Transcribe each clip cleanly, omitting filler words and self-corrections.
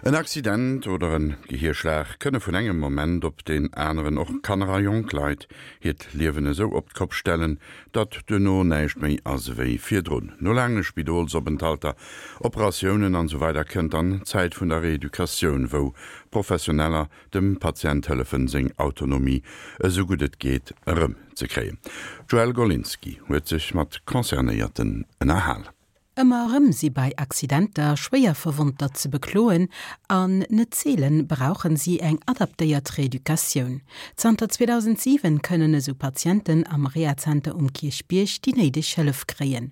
En Accident oder en Gehierschlag kënne vun engem Moment op deen aneren och Kanner a jonk Leit hiert Liewen esou op d'Kopp stellen, datt duerno näischt méi ass ewéi virdrun. No laange Spidolsopenthalter, Operatiounen an esou weider kënnt dann d'Zäit vun der Reeducatioun, wou Professioneller dem Patient hëllefen, seng Autonomie esou gutt et geet erëm ze kréien. D'Joëlle Golinski huet sech mat Concernéierten ënnerhal. Ëmmer erëm si bei Accidenter Schwéierverwonnter ze bekloen an net seelen brauchen si eng adaptéiert Reeducatioun. Zanter 2007 kënnen esou Patienten am Rehazenter um Kierchbierg déi néideg Hëllef kréien.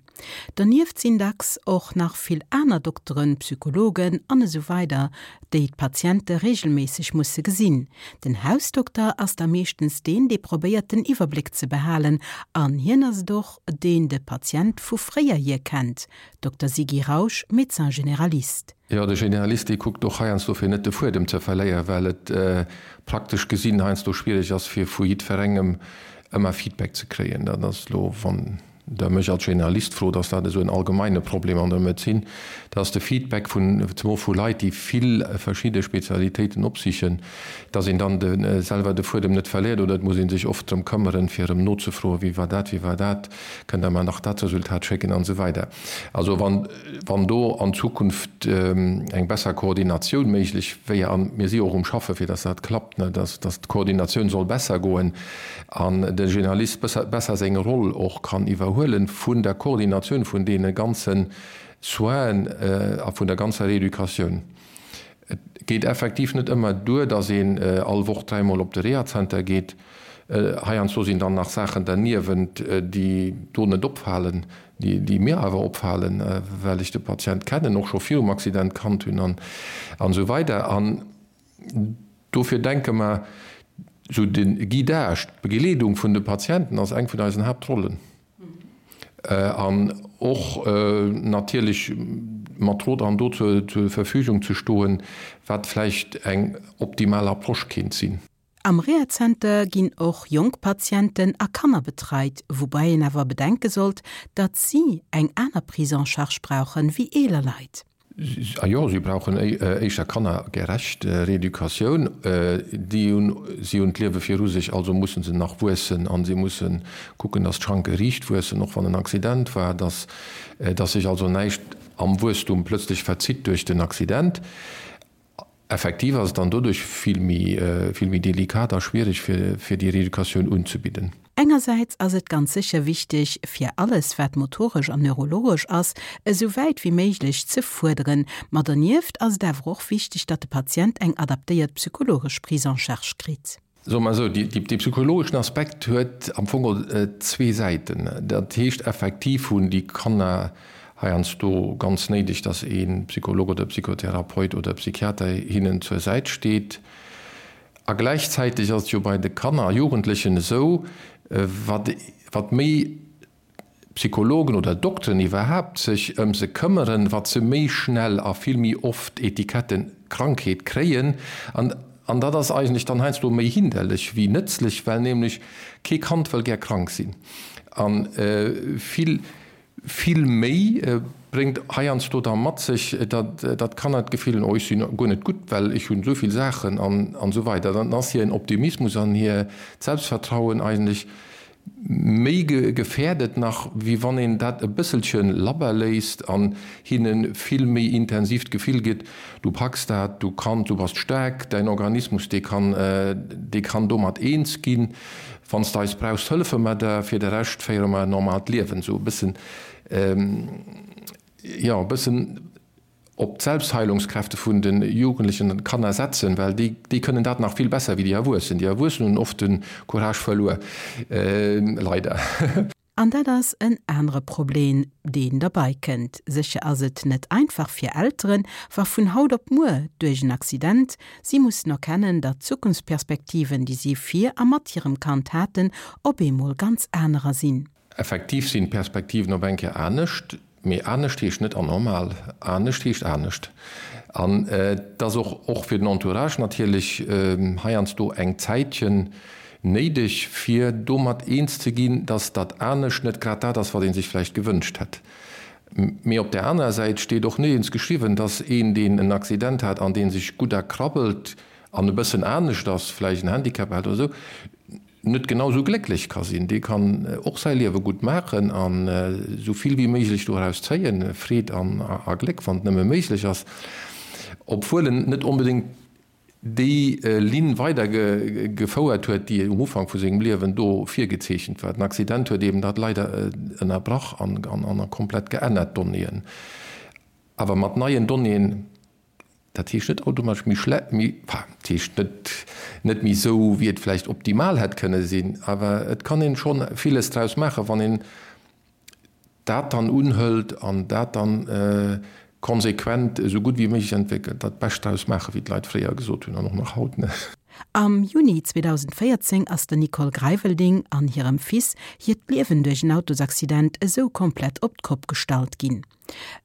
Donieft sinn dacks och nach vill aner Dokteren, Psychologen an esou weider déi d'Patiente reegelméisseg musse gesinn. Den Hausdokter ass da meeschtens deen, dee probéiert den Iwwerbléck ze behalen an hien ass et och, deen de Patient vu fréier hier kennt, Dokter Sigi Rausch, Médecin généraliste. Jo, de Generalist, dee kuckt och heiansdo fir net de Fuedem ze verléieren, well et praktesch gesinn heiansdo schwierig ass fir vu jiddwerengem ëmmer Feedback ze kréien. Dat ass elo, wann Der mech als Generalist frot, ass dat esou en allgemeine Problem an der Medezin, dass de Feedback vun, zemol vu Leit, déi vill verschidde Spezialitéiten opsichen, dass een dann de selwer de Fuedem net verléiert oder et muss ee sech oft drëm këmmeren, fir erëm nozefroen, wéi war dat, wéi war dat, kënnt Der mer nach dat Resultat schécken an esou weider. Also wann, wann do an Zukunft eng besser Koordinatioun méiglech wéier, a mir si och um Schaffe fir dass dat klappt, ne, dass, dass d'Koordinatioun soll besser goen an de Generalist besser, besser seng Roll och kann iwwerhuelen vun der Koordinatioun vun deene ganze Soinen a vun der ganzer Rééducatioun. Et geet effektiv net ëmmer duer, datt een all Woch dräimol op de Rehazenter geet. Heiansdo sinn dann nach Saachen derniewent, déi do net opfalen, déi mir awer opfalen, well ech de Patient kennen, och scho virum Accident kannt hunn an esou weider. An dofir denke mer, esou de Guidage, d'Begleedung vun de Patienten ass eng vun eisen Haaptrollen. An och natierlech mat Rot an Dot zur Verfügung ze stoen, wat vläicht eng optimal Approche kéint sinn. Am Rehazenter ginn och jonk Patienten a Kanner betreit, woubäi een awer bedenke sollt, datt si eng aner Prise en charge brauchen wéi eeler Leit. A jo, si brauchen éischter kannergerecht Reeducatioun. Déi hunn, si hunn d'Liewe viru sech, also musse se nach wuessen a si musse kucken, datt d'Schranke riicht wuessen, och wann en Accident war, datt, datt sech also näischt am Wuesstum plötzlech verzitt duerch den Accident. Effektiv ass et dann doduerch vill méi, vill méi delikat a schwierig, fir, fir déi Reeducatioun unzebidden. Engersäits ass et ganz sécher wichteg, fir alles, wat motoresch an neurologesch ass, esou wäit wéi méiglech ze fuerderen. Ma dernieft ass et awer och wichteg, datt de Patient eng adaptéiert psychologesch Prise en charge kritt. Soe mer esou, dee psychologeschen Aspekt huet am Fong zwee Säiten. Dat heescht, effektiv hunn déi Kanner heiansdo ganz néideg, datt ee Psycholog oder Psychotherapeut oder Psychiater hinnen zur Säit steet. A gläichzäiteg ass et jo bei de Kanner a Jugendlechen esou, wat méi Psychologen oder Dokteren iwwerhaapt sech ëm se këmmeren, wat se méi schnell a vill méi oft Etiketten Krankheet kréien. An an dat ass eigentlech dann heiansdo méi hinderlech wéi nëtzlech, well nämlech kee Kand wëll gär krank sinn. A vill, vill méi bréngt heiansdo da mat sech, datt datt d'Kanner d'Gefill hunn, oh ech sinn guer net gutt, well ech hunn esou vill Saachen an an esou weider. Dann ass hiren Optimismus an hir Selbstvertrauen eigentlech Méi gefährdet nach, wéi wann een dat e bësselche labber léisst an hinne vill méi intensiv d'Gefill gëtt, du packs dat, du kanns, du bass staark, däin Organismus, dee kann, dee kann domat eens ginn. Wann s de eis brauchs, hëllefe mer der, fir de Rescht féiere mer en normaalt Liewen. Esou e bëssen, jo, e bëssen. op d'Selbstheilungskräfte vun de Jugendlechen an Kanner setzen, well déi, déi kënnen dat nach vill besser wéi déi Erwuessen. Déi Erwuessen hunn oft de Courage verluer, leider. An dat ass en anere Problem, deen derbei kënnt. Sécher ass et net einfach fir Elteren, wa vun haut op muer, duerch en Accident, si mussen erkennen, datt d'Zukunftsperspektiven, déi si fir a mat hirem Kand haten, op eemol ganz anerer sinn. Effektiv sinn d'Perspektiven op eng Kéier anescht, mee anescht heescht net anormal, anescht heescht anescht. An et ass och, och fir den Entourage natierlech heiansdo eng Zäitchen néideg, fir domat eens ze ginn, dass dat anescht net grad dat ass, wat ee sech vläicht gewënscht hätt. Mee op där anerer Säit steet och nirgends geschriwwen, dass een, deen en Accident hat an dee sech gutt erkrabbelt an e bëssen anescht ass, vläicht en Handicap hat oder esou, net genau esou glécklech ka sinn. Dee kann och säi Liewe gutt maachen an esou vill wéi méiglech doraus zéien, Freed an a Gléck, wann et nëmme méiglech ass, obwuel en net onbedéngt déi Linn weider gefouert huet, déi um Ufank vu sengem Liewen do virgezeechent war. Den Accident huet eben dat leider ënnerbrach an komplett geännert, d'Donnéeën. Awer mat neien Donnéeën, dat heescht net automatesch méi schle, méi, enfin, dat heescht net, net méi esou, wéi et vläicht optimal hätt kënne sinn, awer et kann een schonn villes draus maachen, wann een dat dann unhëlt an dat dann konsequent esou gutt wéi méiglech entwéckelt, dat Bescht draus maachen, wéi d'Leit fréier gesot hunn an och nach haut, ne? Am Juni 2014 ass der Nicole Greivelding an hirem Fils hiert Liewen duerch en Autosaccident esou komplett op d'Kopp gestallt ginn.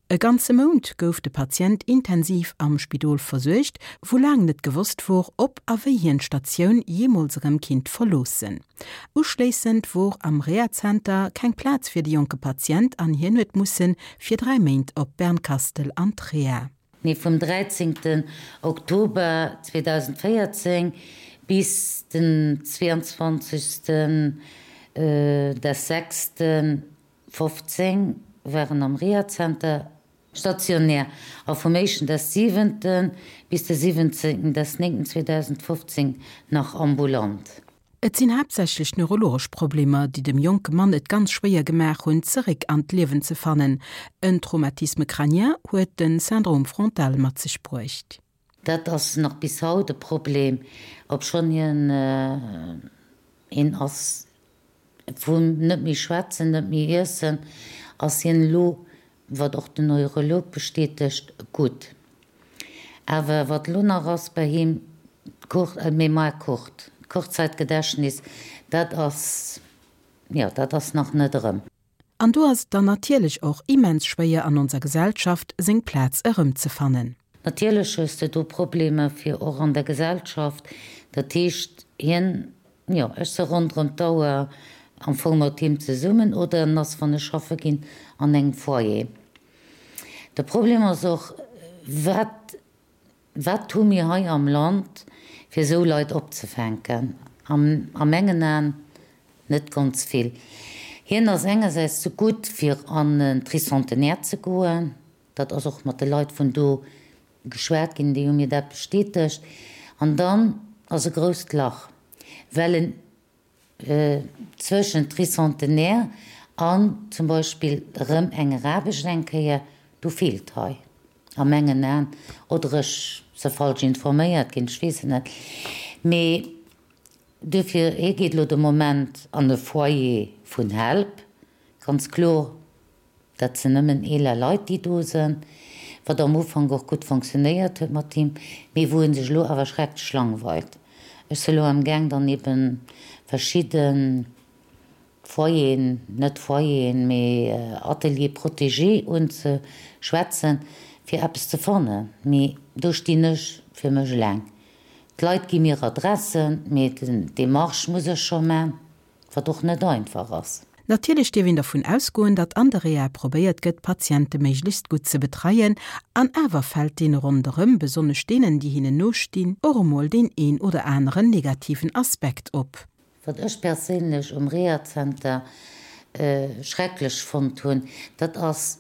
E ganze Mount gouf de Patient intensiv am Spidol versuergt, wou laang net gewosst wor, ob a wéi hien d'Statioun jeemools erëm kinnt verloossen. Uschléissend wor am Rehazenter keng Plaz fir de jonke Patient an hien huet musse fir 3 Méint op Bernkastel an d'Reha. Nee, vum 13 Oktober 2014 bis den 22 des sechsten 15 waren am Rehazenter stationär a vum éischten des siwenten bis de siwwenzéngten des néngten 2015 nach ambulant. Et sinn haaptsächlech neurologesch Problemer, déi dem jonke Mann et ganz schwéier gemaach hunn, zeréck an d'Liewen ze fannen. En Traumatisme crânien huet de Syndrome frontal mat sech bruecht. Dat ass nach bis haut e Problem, obschonn hien een ass Vun net méi schwätzen, net méi iessen ass hien elo, wat och den Neurolog bestätegt, gutt. Awer wat elo nach ass bei him, d'Mémoire courte, d'Kurzzeitgedächtnis, dat ass, jo, dat ass nach net erëm. An do ass et dann natierlech och immens schwéier an onser Gesellschaft seng Plaz erëmzefannen. Natierlech hues de do Problemer fir och an der Gesellschaft, dat heescht hien, jo ech se ronderëm d'Auer am Fong mat him zesummen oder en ass wann ech schaffe ginn an engem Foyer. De Problem ass och, wat Wat hu mir hei am Land, fir esou Leit opzefänken? A mengen Aen net ganz vill. Hien ass engersäits ze gutt, fir an en Tricentenaire ze goen. Dat ass och mat de Leit vun do geschwat ginn, déi hu mir dat bestätegt. An dann ass e grousst Lach, well en Zwëschent Tricentenaire an zum Beispill erëm enger Aarbecht eng Kéier, do feelt hei a mengen Aen, oder ech se falsch informéiert ginn, ech weess et net, mee duerfir, hie geet elo de Moment an e Foyer vun Help, ganz kloer. Dat sinn nëmmen eeler Leit, déi do sinn, wat am Ufank och gutt fonctionnéiert huet mat him, mee wou e sech elo awer schrecklech langweilt. Ech si elo amgaang dann ebe verschidde Foyeren, net Foyeren, mee Ateliers protégés unzeschwätzen, fir eppes ze fannen. Mee do stinn ech fir mech eleng. D'Leit gi mir Adressen, mee d'Démarche muss ech scho man. Wat och net einfach ass. Natierlech dierf een dervun ausgoen, datt an der Reha probéiert gëtt, d'Patiente méiglechst gutt ze betreien. An awer fält deene ronderëm, besonnesch deenen, déi hinnen nostinn, och emol deen een oder aneren negativen Aspekt op. Wat ech perséinlech um Rehazenter schrecklech fonnt hunn, dat ass,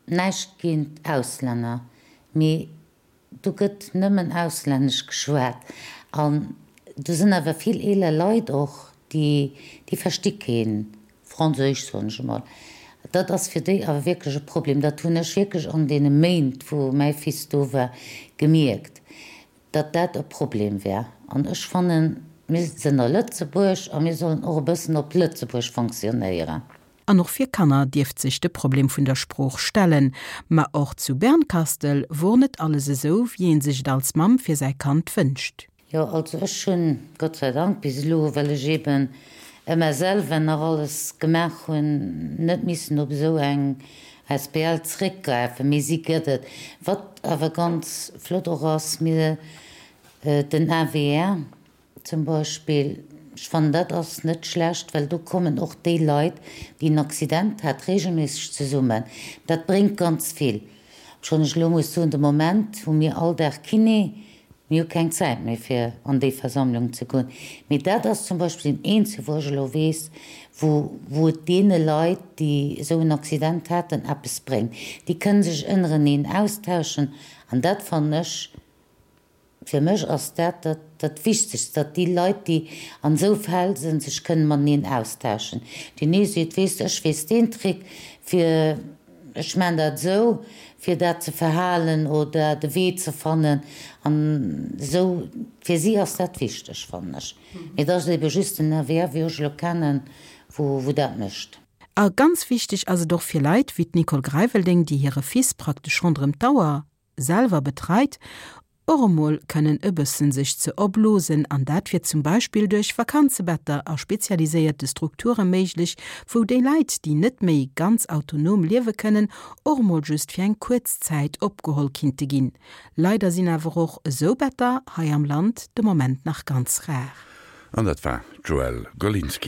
näischt géint Auslänner, mee Do gëtt nëmmen auslännesch geschwat an do sinn awer vill eeler Leit och, déi, déi versti keen Franséisch, soen ech emol. Dat ass fir déi awer wierklech e Problem. Dat hunn ech wierklech an deene Méint, wou mäi Fils do war, gemierkt, datt dat e Problem war. An ech fannen, mir sinn a Lëtzebuerg a mir sollen och e bëssen op Lëtzebuerg fonctionnéieren. An och fir Kanner dierft sech de Problem vun der Sprooch stellen. Ma och zu Bernkastel wor net alles esou, wéi een sech et als Mamm fir säi Kand wënscht. Jo, also ech hunn, Gott sei Dank, bis elo, well ech eben ëmmer selwer nach alles gemaach hunn, net missen op esou eng asbl zréckgräifen, mee si gëtt et. Wat awer ganz flott och ass, mir, den AWR, Zum Beispill. Ech fannen, dat ass net schlecht, well do kommen och déi Leit, déi en Accident hat, regelméisseg zesummen. Dat bréngt ganz vill. Obschonn ech elo muss soen, de Moment hu mir all Dag Kiné, mir hu keng Zäit méi fir an déi Versammlung ze goen. Mee dat ass zum Beispill deen eenzege wou ech elo weess, wou wou et deene Leit, déi esou en Accident haten, eppes bréngt. Déi kënne sech ënnereneen austauschen an dat fannen ech Fir mech ass dat dat Wichtegst, datt déi Leit, déi an esou Fäll sinn, sech kënnen mateneen austauschen. Deen ee seet, weess de, ech weess deen Trick, fir, ech maan dat esou, fir dat ze verhalen oder de Wee ze fannen. An esou, fir si ass dat wichteg, fannen ech. Mee et ass ebe just den AVR, wéi ech elo kennen, wou dat mécht. A ganz wichteg ass et och fir Leit wéi d'Nicole Greiveldeng, déi hire Fils praktesch ronderëm d'Auer selwer betreit, och emol kënnen e bëssen sech ze opblosen an dat wier zum Beispill duerch Vakanzebetter a spezialiséierte Strukture méiglech, wou déi Leit, déi net méi ganz autonom liewe kënnen, och emol just fir eng kuerz Zäit opgeholl kinnte ginn. Leider sinn awer och esou Better hei am Land de Moment nach ganz rar. An dat war d'Joëlle Golinski.